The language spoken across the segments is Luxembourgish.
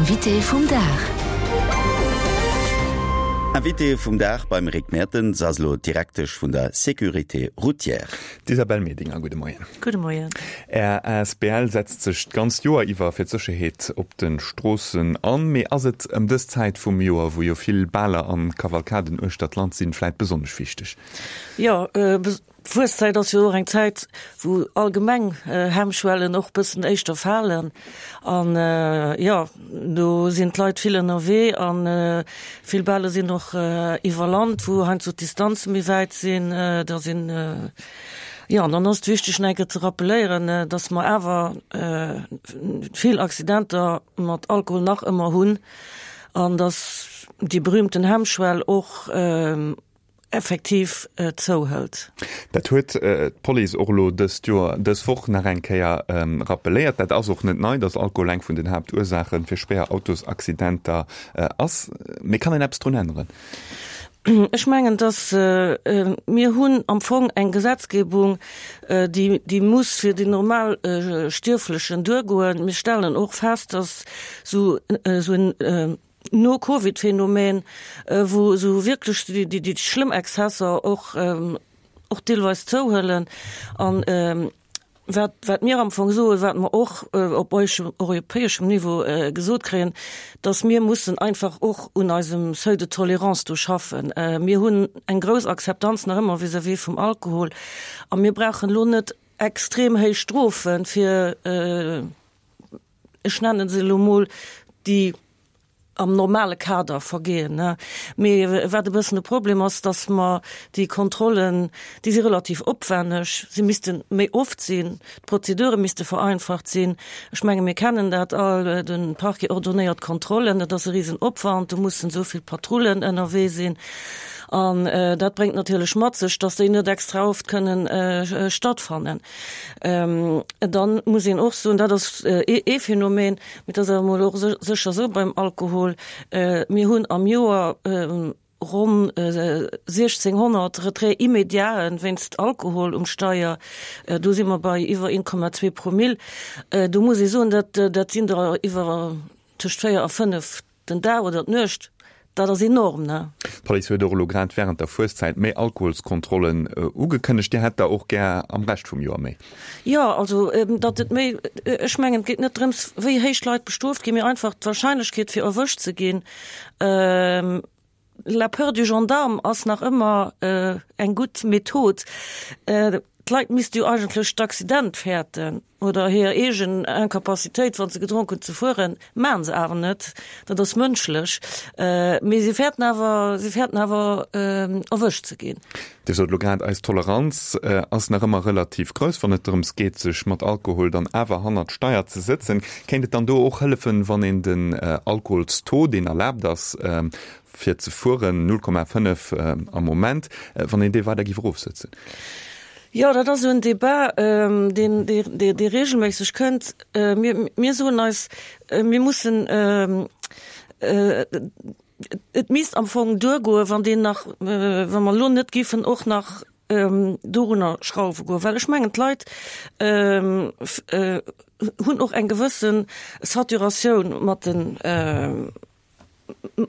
Invité vum Dag. Invité vum Dag beim Rick Mertens ass elo d'Direktesch vun der Sécurité routière. D'Isabelle Medinger, gudde Moien. Gudde Moien. Är asbl setzt sech d'ganzt Joer iwwer fir d'Sécherheet op de Stroossen an. Mee ass et ëm dës Zäit vum Joer, wou jo vill Baler an Kavalkaden uechter d'Land sinn, vläit besonnesch wichteg? Jo, D'Fueszäit ass jo och eng Zäit, wou allgemeng Hemmschwellen och bëssen éischter falen. An jo, do sinn d'Leit vill ënnerwee a vill Bale sinn och iwwer Land, wou heiansdo d'Distanze méi wäit sinn. Da sinn, jo, an dann ass et wichteg nach eng Kéier ze rappeléieren, dass mer awer vill Accidenter mat Alkohol nach ëmmer hunn an dass déi berühmten Hemmschwell och, effektiv zouhëlt. Dat huet d'Police och elo dëst Joer, dës Woch nach eng Kéier rappeléiert. Dat ass och net nei, datt Alkohol eng vun den Haaptursaache fir schwéier Autosaccidenter ass. Mee kann een eppes drun änneren? Ech mengen, datt mir hunn am Fong eng Gesetzgebung, déi, déi muss fir den normal Stierflechen duergoen. Mir stellen och fest, datt esou en No-Covid-Phänomen, wou esou wierklech déi schlëmm Exzesser och och deelweis zouhuelen. An wat wat mir am Fong soen, wat mer och op europäeschem Niveau gesot kréien, datt mir mussen einfach och un eisem Seuil de tolérance do schaffen. Mir hunn eng grouss Akzeptanz nach ëmmer vis-à-vis vum Alkohol a mir brauchen elo net extrem héich Strofe fir, ech nennen se elo mol, déi am normale Kader vergehen. Mee wat e bëssen de Problem ass, dass mer déi Kontrollen, déi si relativ opwenneg, se misste méi oft sinn, d'Prozedure misste vereinfacht sinn. Ech menge mir kennen dat all, de Parquet ordonnéiert Kontrollen, dat ass e Risenopwand, do mussen esou vill Patrullen ënnerwee sinn. An dat bréngt natierlech mat sech, dass déi net extra oft kënnen stattfannen. Dann muss een och soen, dat ass ee Phänomen, mee dat ass awer emol och sécher esou beim Alkohol, Mir hunn am Joer ronn 1.600 Retraits immédiaten wéinst Alkohol um Steier. Do si mer bei iwwer 1,2 Promille. Do muss ee soen, dat dat sinn der iwwer tëscht 4 a 5 Den Dag oder d'Nuecht, dat ass enorm, ne? D'Police huet och elo grad wärend der Fueszäit méi Alkoholskontrollen ugekënnegt. Dir hätt der och gär am Rescht vum Joer méi? Jo, also datt et méi, ech mengen et geet net drëms, wéi héich d'Leit bestrooft ginn, mee einfach d'Warscheinlechkeet fir erwëscht ze ginn. La peur du gendarme ass nach ëmmer eng gutt Method. D'Leit misste jo eigentlech d'Accident fäerten oder hir eegen Incapacitéit, wa se gedronk hunn, ze fueren. Maachen se awer net. Dat ass mënschlech. Mee se fäerten awer, se fäerten awer erwëscht ze ginn. Dir sot elo grad, eis Toleranz ass nach ëmmer relativ grouss, wann et drëms geet, sech mat Alkohol dann awer hannert d'Steier ze sëtzen. Kéint et dann do och hëllefen, wann een den Alkoholstaux, deen erlaabt ass fir ze fueren, 0,5 am Moment, wann een dee weider géif erofsëtzen? Jo, dat ass esou en Debat, deen, dee regelméisseg kënnt. Mir, mir soen eis, mir mussen, Et misst am Fong duergoen, wann deen nach, wa mer elo net géifen och nach dorunner schrauwe goen, well ech mengen, d'Leit hunn och eng gewësse Saturatioun mat den,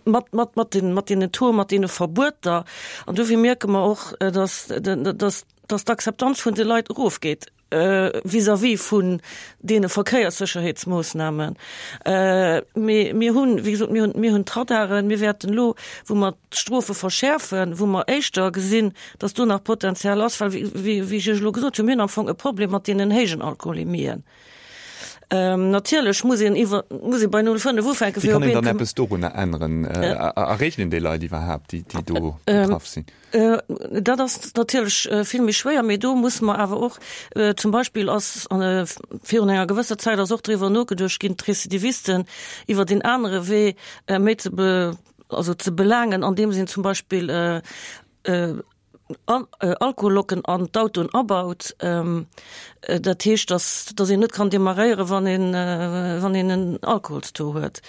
mat, mat, mat den, mat deenen Taux, mat deene Verbueter. An dofir mierke mer och, dass, dass, dass d'Akzeptanz vun de Leit erofgeet. vis-à-vis vun deene Verkéierssécherheetsmoossnamen. Mee mir hunn, wéi gesot, mir hunn, mir hunn d'Radaren, mir wäerten elo, wou mer d'Strofe verschäerfen, wou mer éischter gesinn, dass do nach Potenzial ass, well, wéi ech Iech elo gesot hunn, mir hunn am Fong e Problem mat deenen héijen Alkoholemien. Natierlech muss een iwwer, muss ee bei 0,5 ufänken, fir op een. Wéi kann een dann eppes dorunner änneren? Erreechen een déi Leit iwwerhaapt, déi do betraff sinn? Dat ass natierlech vill méi schwéier, mee do musse mer awer och, zum Beispill ass virun enger gewësser Zäit ass och driwwer nogeduecht ginn, d'Récidivisten iwwer een anere Wee méi ze be, also ze belaangen, andeems een zum Beispill Alkohollocken an d'Autoen abaut. Dat heescht, dass, dass een net kann demarréieren, wann een, wann een en Alkoholstaux huet.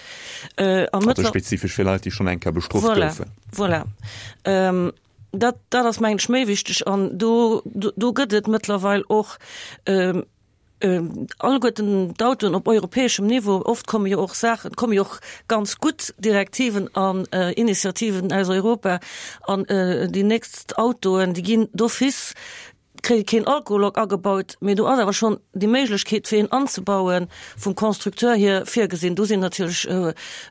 Also spezifesch fir Leit, déi schonn eng Kéier bestrooft goufen. Voilà. Ähm, dat, dat ass mengen ech méi wichteg an do, do, do gëtt et mëttlerweil och ähm, Alleguerten d'Autoen op europäeschem Niveau, oft komme jo och Saachen, komme jo och ganz gutt Direktiven an Initiativen aus Europa, an déi nächst Autoen, déi ginn d'office, kréie keen Alkohollock agebaut, mee do ass awer schonn déi Méiglechkeet fir een anzebauen vum Constructeur hier virgesinn. Do sinn natierlech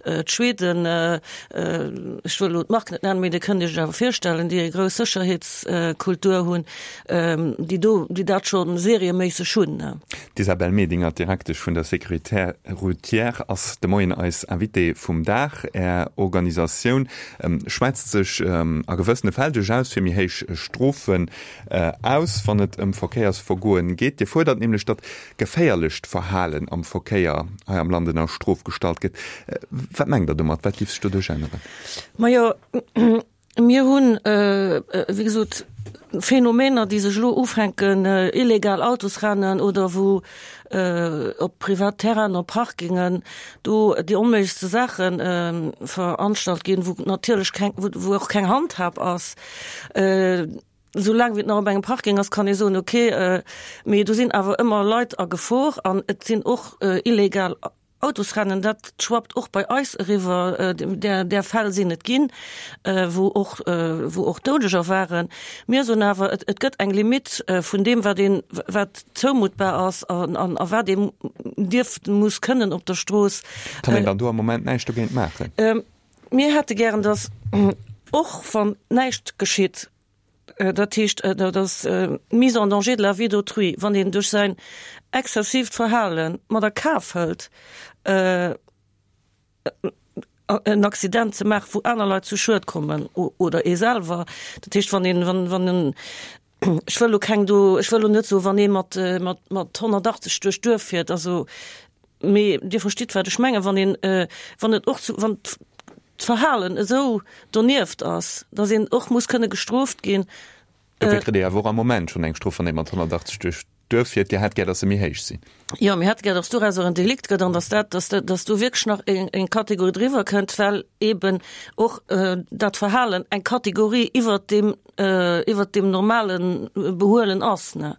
d'Schweden, ech wëll elo d'Mark net nennen, mee Dir kënnt Iech et awer virstellen, déi eng grouss Sécherheetskultur hunn, déi do, déi dat scho serieméisseg hunn. D'Isabelle Medinger, Direktesch vun der Sécurité routière, ass de Moien eis Invitée vum Dag. Är Organisatioun schwätzt sech a gewëssene Fäll duerchaus fir méi héich Strofen aus, wann et ëm Verkéiersvergoen geet. Dir fuerdert nämlech, datt geféierlecht Verhalen am Verkéier hei am Land ënner Strof gestallt gëtt. Wat mengt Der domat? Wat géif sech doduerch änneren? Majo, Mir hunn, wéi gesot, Phänomener, déi sech elo ufänken, illegal Autosrennen oder wou op privat Terrainen, op Parkingen do déi onméiglechste Saache veranstalt ginn, wou natierlech keng, wou och keng Handhab ass. Soulaang wéi et nach op engem Parking ass, kann ee soen, okay, mee do sinn awer ëmmer Leit a Gefor an et sinn och illegal Autosrennen, dat schwappt och bei eis eriwwer, där, där Fäll sinn et ginn, wou och, wou och Doudeger waren. Mir soen awer, et, et gëtt eng Limitt vun deem, wat een, wat zoumuttbar ass an, an, a wat een dierf, muss kënnen op der Strooss. Kann een dann do am Moment näischt dogéint maachen? Mir hätte gären, dass och wann näischt geschitt, Dat heescht, dat ass d'Mise en danger de la vie d'autrui, wann een duerch säin exzessiivt Verhale mat a Kaf hëlt, en Accident ze maachen, wou aner Leit zu Schued kommen oder ee selwer. Dat heescht, wann een, wann, wann en, ech wëll elo keng do, ech wëll elo net soen, wann ee mat, mat, mat 180 duerch d'Duerf fiert, also, mee Dir verstitt, wat ech mengen, wann een, wann et och zu, wann d'Verhalen esou donieft ass, datt een och muss kënne gestrooft ginn. Dofir kritt Dir awer och am Moment schonn eng Strof, wann ee mat 180 duerch d'Duerf fiert. Dir hätt gär, datt se méi héich sinn. Jo, mir hätte gär, datt dorauser en Delikt gëtt an datt dat, datt, datt do wierklech nach eng, eng Kategorie driwwer kënnt, well eeben och dat Verhalen eng Kategorie iwwert deem, iwwert deem normale Behuelen ass, ne.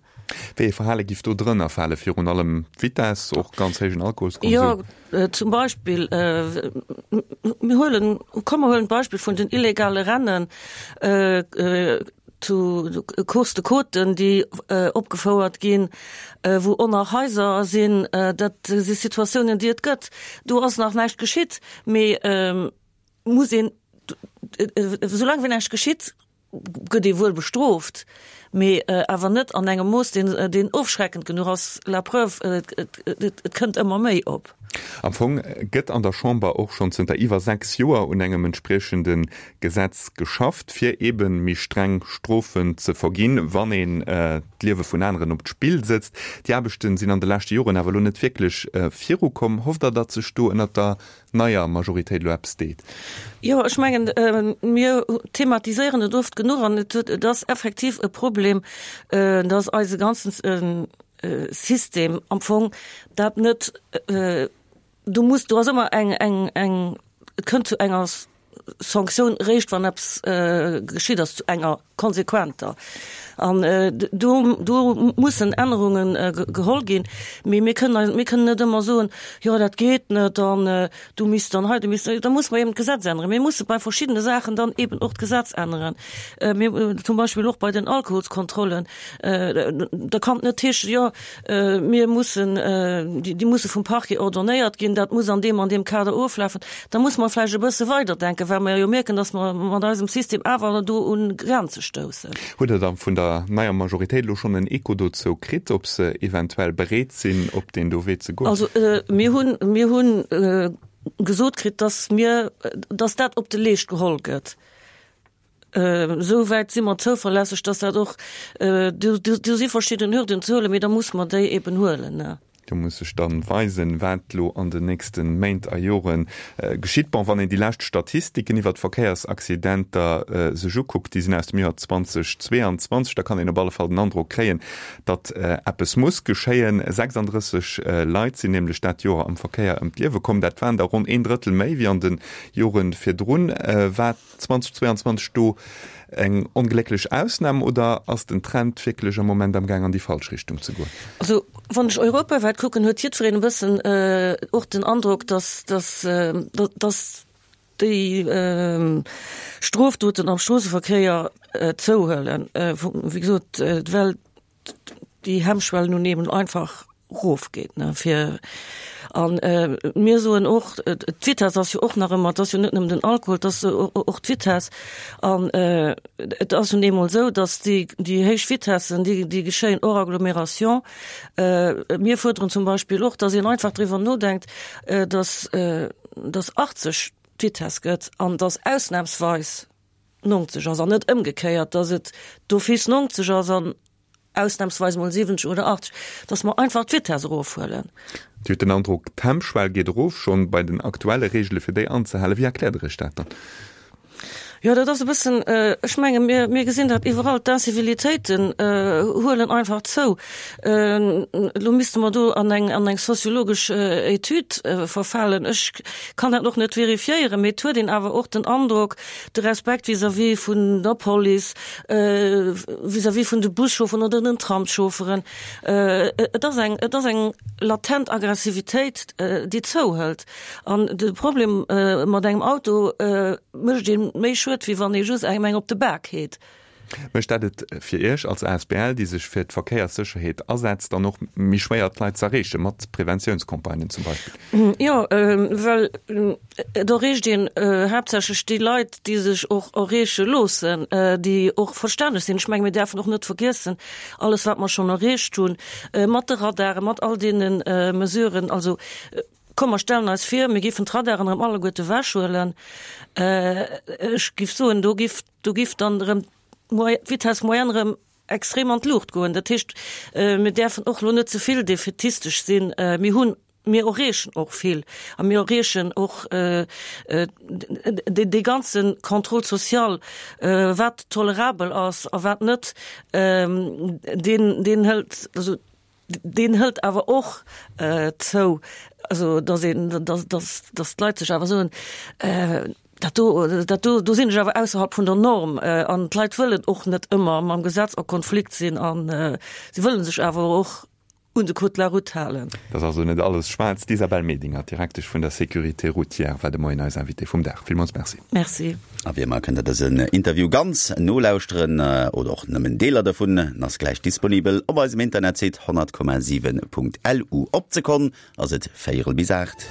Wéi ee Verhale giff do drënner fale? Virun allem d'Vitess, och ganz héijen Alkoholskonsum? Jo, zum Beispill, mir huelen, komm mer huelen d'Beispill vun den illegale Rennen zu Course de Côte, déi opgefouert ginn, wou oner Haiser sinn. Dat si Situatiounen, déi et gëtt. Do ass nach näischt geschitt, mee muss een, soulaang wéi näischt geschitt, gëtt ee wuel bestrooft, mee awer net an engem Mooss, deen, deen ofschreckend genuch ass. La preuve, et, et, et kënnt ëmmer méi op. Am Fong gëtt an der Chamber och schonn zënter iwwer 6 Joer un engem entspriechende Gesetz geschafft, fir eebe méi streng Strofen ze verginn, wann een d'Liewe vun aneren op d'Spill sëtzt. Déi Aarbechte sinn an de leschte Joren awer elo net wierklech virukomm. Hofft Der, datt sech do ënnert der neier Majoritéit elo eppes deet? Jo, ech mengen, mir thematiséieren et oft genuch an et huet, et ass effektiv e Problem, dass eise ganzen System am Fong dat net, do muss, do ass ëmmer eng, eng, eng, et kënnt zu enger Sanktioun eréischt, wann eppes geschitt ass, zu enger konsequenter. An do, do mussen Ännerunge geholl ginn. Mee mir kënnen eis, mir kënnen net ëmmer soen, jo dat geet net an du misst dann hei, du misst, da musse mer eben d'Gesetz änneren. Mir musse bei verschiddene Saachen dann eben och d'Gesetz änneren. Mir, zum Beispill och bei den Alkoholskontrollen, da kann et net heeschen, jo Mir mussen, déi musse vum Parquet ordonnéiert ginn, dat muss an deem an deem Kader oflafen. Da muss mer vläicht e bësse weiderdenken, well mer jo mierken, datt mer mat eisem System awer do un Grenze stoussen. Hutt Der da vun der neier Majoritéit elo schonn en Echo dozou kritt, ob se eventuell bereet sinn, op deen do Wee ze goen? Also mir hunn, mir hunn gesot kritt, datt mir, datt dat op de Leescht geholl gëtt. Esou wäit si mer zouverlässeg, dass dat och, do si verschidden Hürden ze huelen, mee da musse mer déi eben huelen. Do muss sech dann weisen, wat lo an den nächste Méint a Jore geschitt. Bon, wann een déi lescht Statistiken iwwert d'Verkéiersaccidenter sech ukuckt, déi sinn aus dem Joer 2022, da kann een op alle Fall den Androck kréien, datt eppes muss geschéien. 36 Leit sinn nämlech dat Joer am Verkéier ëm d'Liewe komm. Dat waren der ronn een Drëttel méi wéi an de Jore virdrun. Wat 2022 do eng onglécklech Ausnam oder ass den Trend wierklech am Moment am Gaang an déi falsch Richtung ze goen? Also wann ech europawäit kucken, huet jiddwereen e bëssen och den Androck, dass, dass, dass déi Strofdoten am Stroosseverkéier zouhuelen. Wéi gesot, well déi Hemmschwell nun eben einfach rofgeet ne fir an äh, mir soen och d'Vitess ass jo och nach ëmmer, et ass jo net nëmmen den Alkohol, et ass och d'Vitess an äh, et ass nun eemol esou, datt déi déi héich Vitessen, déi déi geschéien hors agglomération. Äh, mir fuerderen zum Beispill och, datt een einfach driwwer nodenkt, äh, datt äh, datt 80 d'Vitess gëtt an datt ausnahmsweis 90 ass an net ëmgekéiert, datt et d'office 90 ass an ausnahmsweis mol 70 oder 80, datt mer einfach d'Vitess erofhuelen. Dir hutt den Androck, d'Hemmschwell geet erof, schonn bei den aktuelle Reegele fir déi anzehalen. Wéi erkläert Der Iech dat dann? Jo, dat ass e bëssen, ech menge mir, mir gesinn dat iwwerall, d'Incivilitéiten huelen einfach zou. Elo misste mer do an eng, an eng soziologesch Etüd verfalen. Ech kann dat och net verifiéieren, mee et huet een awer och den Androck, de Respekt vis-à-vis vun der Police, vis-à-vis vun de Buschaufferen oder den Tramschaufferen. Et ass eng, et ass eng latent Aggressivitéit, déi zouhëlt. An de Problem, mat engem Auto mécht ee méi Schued, wéi wann ee just engem eng op de Bak heet. Mécht dat et fir Iech als asbl, déi sech fir d'Verkéierssécherheet asetzt, dann och méi schwéier, d'Leit z'erreechen, mat Preventiounscampagnen zum Beispill? Jo, well et erreecht een haaptsächlech déi Leit, déi sech och erreeche loossen, déi och verstänneg sinn. Ech menge mir däerfen och net vergiessen, alles wat mer schonn erreecht hunn, mat de Radaren, mat all deene Mesuren, also komm mer stellen eis vir, mir géifen d'Radaren erëm alleguerte ewechhuelen, ech géif soen, do géif, do géif dann erëm d'Vitesse moyenne erëm extrem an d'Luucht goen. Dat heescht, mir däerfen och elo net ze vill defätistesch sinn. Mir hunn, mir erreechen och vill a mir erreechen och dee ganze Contrôle social, wat tolerabel ass a wat net, deen, deen hëlt, also deen hëlt awer och zou, also datt een, datt, datt, datt d'Leit sech awer soen, dat do, dat do, do sinn ech awer ausserhalb vun der Norm. An d'Leit wëllen och net ëmmer mam Gesetz a Konflikt sinn a se wëlle sech awer och un de Code de la route halen. Dat ass also net alles schwaarz. D'Isabelle Medinger, Direktesch vun der Sécurité routière, war de Moien eis Invitée vum Dag. Villmools Merci. Merci. A wéi ëmmer kënnt der dësen Interview ganz nolauschteren oder och nëmmen Deeler dovun. En ass gläich disponibel op eisem Internetsite 100,7.lu. Op d'Sekonn ass et véierel bis 8.